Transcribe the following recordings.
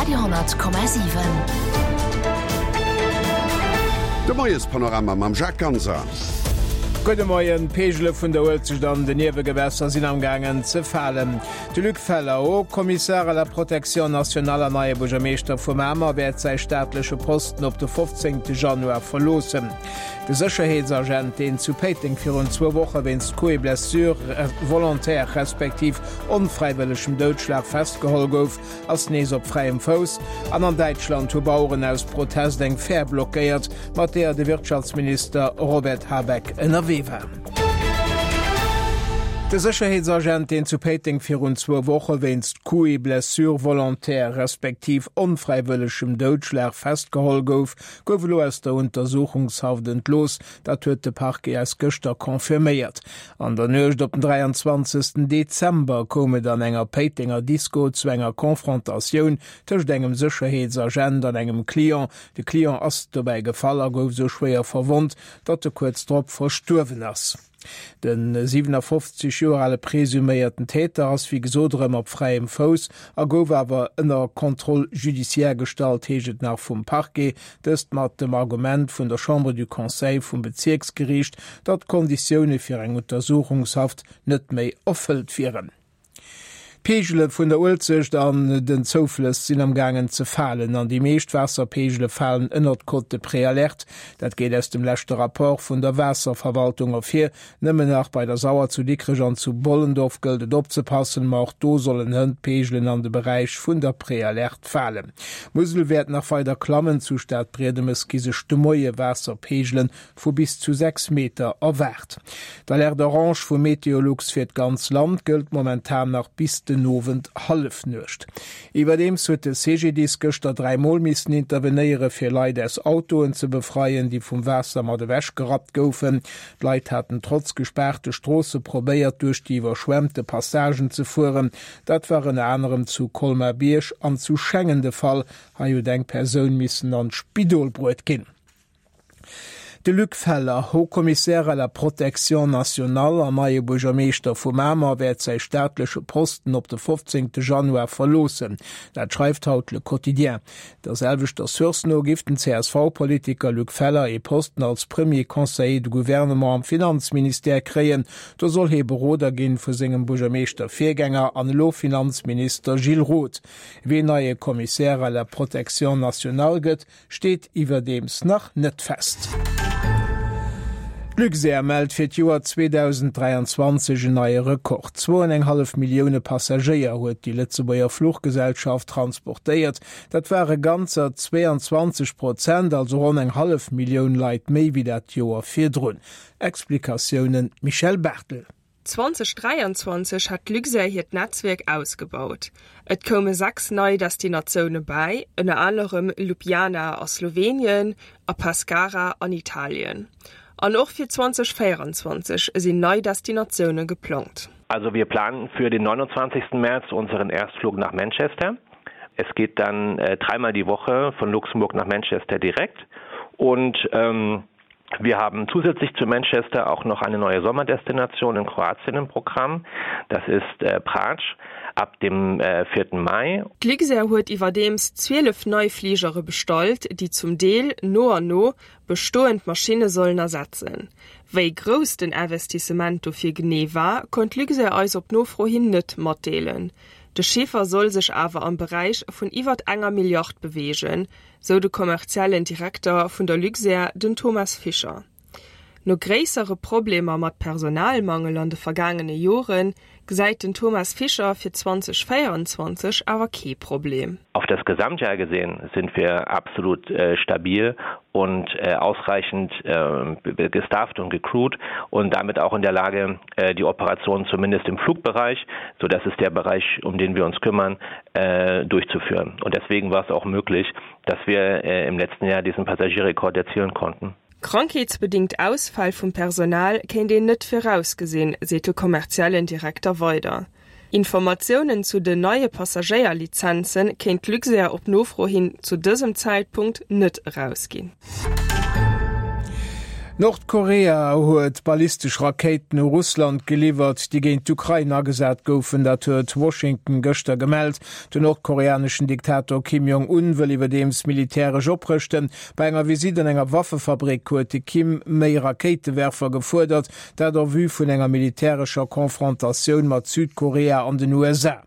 Radio 10,7. De Moiespanorama mam Jacques Ganser. Gudde Moien, D'Peegele vun der Uelzecht an den Niewegewässer sinn am gaangen ze falen. De Luc Feller, Haut Commissaire à la protection nationale an neie Buergermeeschter vu Mamer, wäert säi staatleche Posten op de 15 Januar verloossen. De Sécherheetsagent, deen zu Péiteng virun zwou Woche wéinst Coups et blessures volontaires respektiv onfräiwëllegem Doudschlag festgeholl gouf, ass nees op fräiem Fouss. An an Däitschland hu Baueren aus Protest eng Fähr blockéiert, mat deeër de Wirtschaftsminister Robert Habeck ënnerwee war. De Sécherheetsagent, deen zu Péiteng virun zwou Woche wéinst Coups et blessures volontaires respektiv onfräiwëllegem Doudschlag festgeholl gouf, gouf elo aus der Untersuchungshaft entlooss. Dat huet de Parquet eis gëschter confirméiert. An der Nuecht op den 23. Dezember koum et an enger Péitenger Disco zu enger Confrontatioun tëscht engem Sécherheetsagent an engem Client. De Client ass dobäi gefall a gouf sou schwéier verwonnt, datt e kuerz drop verstuerwen ass. De 57 Joer ale presuméierten Täter ass wéi gesot erëm op fräiem Fouss a gouf awer ënner Contrôle judiciaire gestallt, heescht et nach vum Parquet. Dëst mat dem Argument vun der Chambre du Conseil vum Bezierksgeriicht, datt d'Konditioune fir eng Untersuchungshaft net méi erfëllt wieren. D'Peegele vun der Uelzecht an den Zouflëss sinn am gaangen ze falen an déi meescht Waasserpeegele falen ënnert d'Cote de préalerte. Dat geet aus dem leschte Rapport vun der Waasserverwaltung ervir. Nëmmen nach bei der Sauer zu Dikrech an zu Bollendorf gëllt et opzepassen, ma och do sollen hënt d'Peegelen an de Beräich vun der Préalerte falen. D'Musel wäert nach weider klammen, zu Stadbriedemes gi sech de Moie Waasserpeegele vu bis zu 6 Meter erwaart. D'Alerte orange vu Meteolux fir d'ganz Land gëllt momentan nach bis den Owend Hallefnuecht. Iwwerdeems huet de CGDIS gëschter 3 Mol missen intervenéiere fir Leit aus Autoen ze befreien, déi vum Waasser mat ewech gerappt goufen. D'Leit haten trotz gespaarte Stroosse probéiert duerch déi iwwerschwemmte Passagen ze fueren. Dat war ënner anerem zu Colmar-Bierg an zu Schengen de Fall. Hei huet eng Persoun missen an d'Spidol bruet ginn. De Luc Feller, Haut Commissaire à la protection nationale an neie Buergermeeschter vu Mamer, wäert säi staatleche Posten op de 15 Januar verloossen. Dat schreift haut Le Quotidien. Der selwechter Source no giff den CSV-Politiker Luc Feller ee Posten als Premier Conseiller de Gouvernement am Finanzministère kréien. Do soll hee Beroder ginn vu sengem Buergermeeschter-Virgänger an elo Finanzminister Gilles Roth. Ween neie Commissaire à la protection nationale gëtt, steet iwwerdeems nach net fest. D'Luxair mellt fir d'Joer 2023 en neie Rekord, Zwou an eng hallef Millioune Passagéier huet déi Lëtzebuerger Fluchgesellschaft transportéiert. Dat ware ganzer 22 Prozent, also ronn eng hallef Millioun Leit méi wéi dat Joer virdrun. Explikatiounen Michèle Barthel. 2023 hat d'Luxair hiert Netzwierk ausgebaut. Et koume 6 nei Destinatioune bäi, ënner anerem Ljubljana a Slowenien a Pescara an Italien. An och fir 2024 sinn nei Destinatioune geplangt. Also wir planen für den 29. März unseren Erstflug nach Manchester. Es geht dann äh, dreimal die Woche von Luxemburg nach Manchester direkt und ähm, Wir haben zusätzlich zu Manchester auch noch eine neue Sommerdestination in Kroatien im Programm. Das ist äh, Pratsch ab dem äh, 4. Mai. D'Luxair huet iwwerdeems 12 nei Fligere bestallt, déi zum Deel no an no bestoend Maschinne sollen ersetzen. Wéi grouss den Investissement dofir genee war, konnt d'Luxair eis op Nofro hin net matdeelen. De Chiffer soll sech awer am Beräich vun iwwert enger Milliard beweegen, sou de kommerziellen Direkter vun der Luxair, den Thomas Fischer. No gréissere Problemer mat Personalmangel an de vergaangene Jore gesäit den Thomas Fischer fir 2024 awer kee Problem. Auf das Gesamtjahr gesehen sind wir absolut stabil und ausreichend gestafft und gecrewt und damit auch in der Lage, die Operationen zumindest im Flugbereich, so das ist der Bereich, um den wir uns kümmern, durchzuführen. Und deswegen war es auch möglich, dass wir im letzten Jahr diesen Passagierrekord erzielen konnten. Krankheetsbedingt Ausfäll vum Personal kéint een net virausgesinn, seet de kommerziellen Direkter weider. Informatiounen zu den neie Passagéierlizenze kéint d'Luxair op Nofro hin zu dësem Zäitpunkt net erausginn. Nordkorea huet ballistesch Rakéiten u Russland geliwwert, déi géint d'Ukrain agesat goufen. Dat huet Washington gëschter gemellt. Den nordkoreaneschen Diktator Kim Jong-un wëll iwwerdeems militäresch oprëschten. Bei enger Visitt an enger Waffefabrik huet de Kim méi Rakéitewerfer gefuerdert, dat en vue vun enger militärescher Konfrontatioun mat Südkorea an den USA.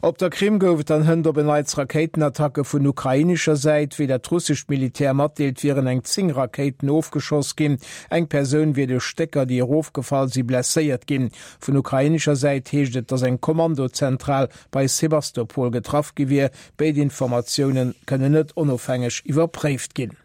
Op der Krim gouf et dann hënt op en Neits Rakéitenattacke vun ukrainescher Säit. Wéi dat russescht Militär matdeelt, wieren eng 10 Rakéiten ofgeschoss ginn. Eng Persoun wier duerch Stécker, déi erofgefall si, blesséiert ginn. Vun ukrainescher Säit heescht et, datt eng Kommandozentral bei Sewastopol getraff gi wier. Béid Informatioune kënnen net onofhängeg iwwerpréift ginn.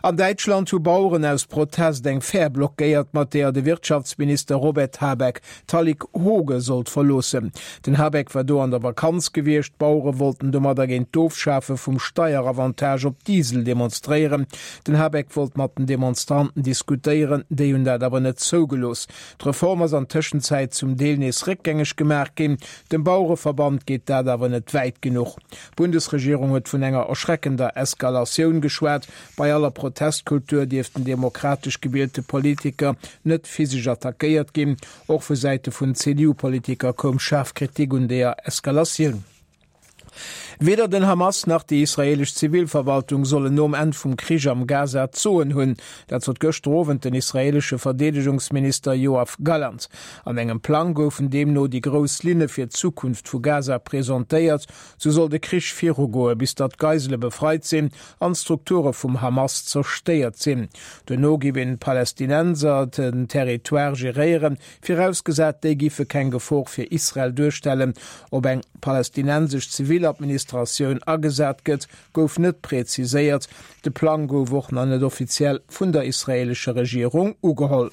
An Däitschland hu Baueren aus Protest eng Fähr blockéiert, mat deeër de Wirtschaftsminister Robert Habeck d'Hallig Hooge sollt verloossen. Den Habeck war do an der Vakanz gewiescht. D'Bauere wollten domadder géint d'Ofschafe vum Steieravantage op Diesel demonstréieren. Den Habeck wollt mat den Demonstranten diskutéieren, déi hunn dat awer net zougelooss. D'Reform ass an Tëschenzäit zum Deel nees réckgängeg gemaach ginn. Dem Bauereverband geet dat awer net wäit genuch. D'Bundesregierung huet vun enger erschreckender Eskalatioun geschwat. Bei aller Protestkultur dierften demokratesch gewielte Politiker net physesch attackéiert ginn. Och vu Säite vun CDU-Politiker koum schaarf Kritik un deeër Eskalatioun. Weder den Hamas nach déi israeelesch Zivilverwaltung sollen nom Enn vum Krich am Gaza d'Soen hunn. Dat sot gëschter Owend den israeelesche Verdeedegungsminister Yoav Gallant. An engem Plang goufen deemno déi grouss Linne fir d'Zukunft vu Gaza presentéiert. Sou soll de Krich virugoe bis datt d'Geisele befreit sinn an d'Strukture vum Hamas zerstéiert sinn. Duerno giff een d'Palästinenser den Territoire geréieren, virausgesat déi giffe keng Gefor fir Israel duerstellen. Ob eng palästinensesch Ziviladministratioun agesat gëtt, gouf net präziséiert. De Plang gouf och nach net offiziell vun der israeelescher Regierung ugeholl.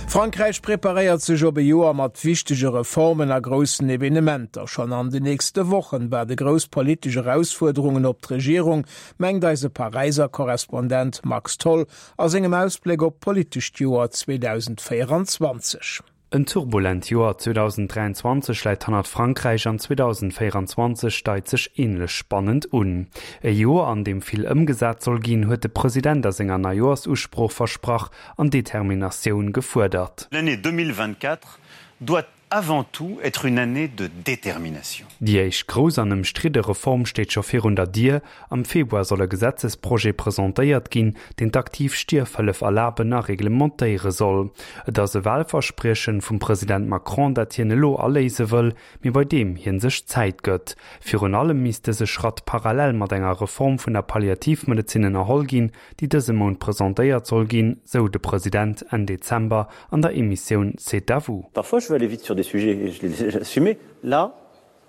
Frankräich preparéiert sech op e Joer mat wichtege Reformen a groussen Evenementer. Schonn an de nächste Wochen waarde grouss politesch Erausfuerderungen op d'Regierung, mengt eise Paräiser Korrespondent Max Tholl a sengem Ausbléck op d'politescht Joer 2024. En turbulent Joer 2023 läit hannert Frankräich an 2024 deit sech änlech spannend un. E Joer, an deem vill ëmgesat soll ginn, huet de President a senger Neijoersusprooch versprach an Determinatioun gefuerdert. L'année 2024 doit avant tout être une année de détermination. Déi éischt grouss an ëmstridde Reform steet scho virun der Dier, Am Februar soll e Gesetzesprojet presentéiert ginn, deen d'aktiv Stierfhëllef erlaben a reglementéiere soll. Et ass e Wahlverspriechen vum President Macron, dat hien elo aléise wëll, mee bei deem hien sech Zäit gëtt. Virun allem misst dëse Schratt parallel mat enger Reform vun der Palliativmedezin ënnerholl ginn, déi dëse Mount presentéiert soll ginn, sou de President Enn Dezember an der Emissioun C'est à vous. Parfois je veux aller vite sur des sujets et je l'ai assumé, là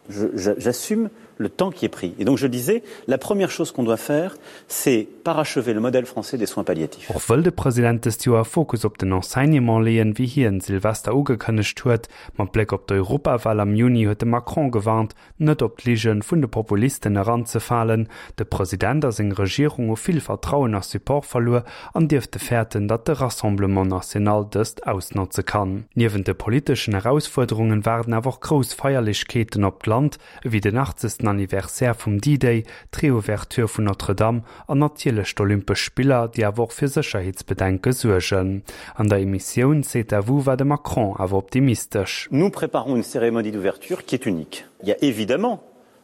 j'assume le temps qui est pris. Et donc je disais, la première chose qu'on doit faire, c'est parachever le modèle français des soins palliatifs. Och wëll de President dëst Joer Fokus op den Enseignement leeën, wéi hien Silvester ugekënnegt huet. Mat Bléck op d'Europawal am Juni huet de Macron gewarnt, net op d'Lige vun de Populisten eranzefalen. De President a seng Regierung hu vill Vertrauen a Support verluer an dierfte fäerten, datt de Rassemblement National dëst ausnotze kann. Niewent de politeschen Erausfuerderungen waarden awer och grouss Feierlechkeeten op d'Land, ewéi den 80. Anniversaire vum D-Day, d'Reouverture vun Notre-Dame an natierlech d'Olympesch Spiller, déi awer och fir Sécherheetsbedenke suergen. An der Emissioun C'est à vous war de Macron awer optimistesch. Nous préparons une cérémonie d'ouverture qui est unique. Il y a évidemment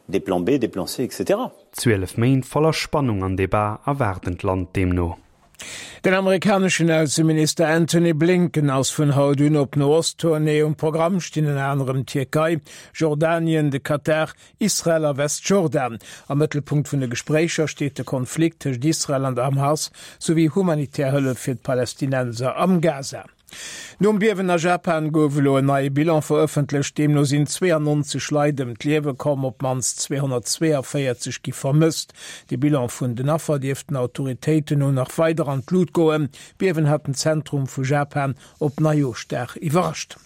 des plans B, des plans C, etc. 12 Méint voller Spannung an Debat erwaarden d'Land deemno. Den amerikaneschen Ausseminister Antony Blinken ass vun haut un op No-Ost-Tournée. Um Programm stinn ënner anerem d'Tierkei, Jordanien, de Katar, Israel a Westjordan. Am Mëttelpunkt vun de Gespréicher steet de Konflikt tëscht Israel an der Hamas, souwéi humanitär Hëllef fir d'Palästinenser am Gaza. Nom Biewen a Japan gouf elo en neie Bilan verëffentlecht. Deemno sinn 92 Leit ëm d'Liewe komm, op d'mannst 242 gi vermësst. De Bilan vun den Affer dierft den Autoritéiten no nach weider an d'Lut goen. D'Biewen hat den Zentrum vu Japan op Neijooschdag iwwerrascht.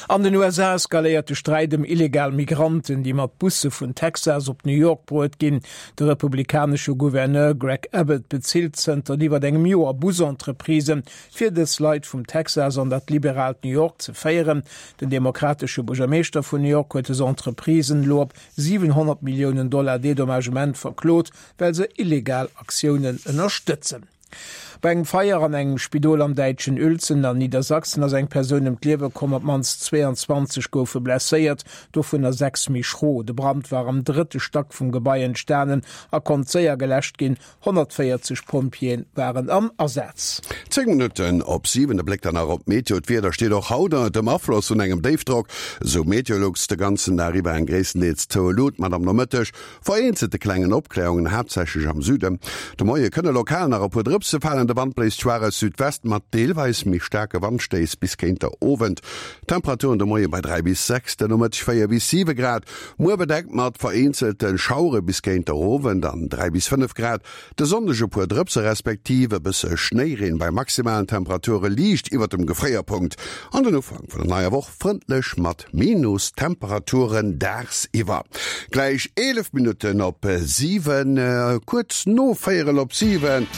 An den USA eskaléiert de Sträit ëm illegal Migranten, déi mat Busse vun Texas op New York bruet ginn. De republikanesche Gouverneur Greg Abbott bezilt zënter iwwer engem Joer Busentreprisen, fir dës Leit vum Texas an dat liberaalt New York ze féieren. Den demokratesche Buergermeeschter vun New York huet dës Entreprisen elo op 700 Milliounen Dollar Dedommagement verklot, well se illegal Aktiounen ënnerstëtzen. Bei engem Feier an engem Spidol am däitschen Uelzen an Niedersachsen ass eng Persoun ëm d'Liewe komm, op d'mannst 22 goufe blesséiert, dovunner 6 méi schro. De Brand war am drëtte Stack vum Gebai entstanen a konnt séier geläscht ginn. 140 Pompjeeë waren am Asaz. 10 Minutten op 7, de Bléck dann nach op d'Meteo. D'Wieder steet och haut ënnert dem Afloss vun engem Déifdrock, esou Meteolux. De ganzen Dag iwwer eng gréisstendeels zoue Lut mat am Nomëtteg vereenzelte klengen Opkläerungen, haaptsächlech am Süden. De Moie kënne lokal nach e puer Drëpse falen. De Wand bléist schwaach aus Südwest mat deelweis méi staarke Wandstéiss bis géint der Owend. D'Temperaturen de Moie bei 3 bis 6, de Nomëtteg 4 bis 7 Grad. Muer bedeckt mat vereenzelte Schauere bis géint der Owend an 3 bis 5 Grad. De Sonndeg e puer Drëpse respektiv e bësse Schnéireen bei maximalen Temperature liicht iwwert dem Gefréierpunkt. An den Ufank vun der neier Woch frëndlech mat Minustemperaturen dagsiwwer. Gläich 11 Minutten op 7, kuerz no véierel op 7.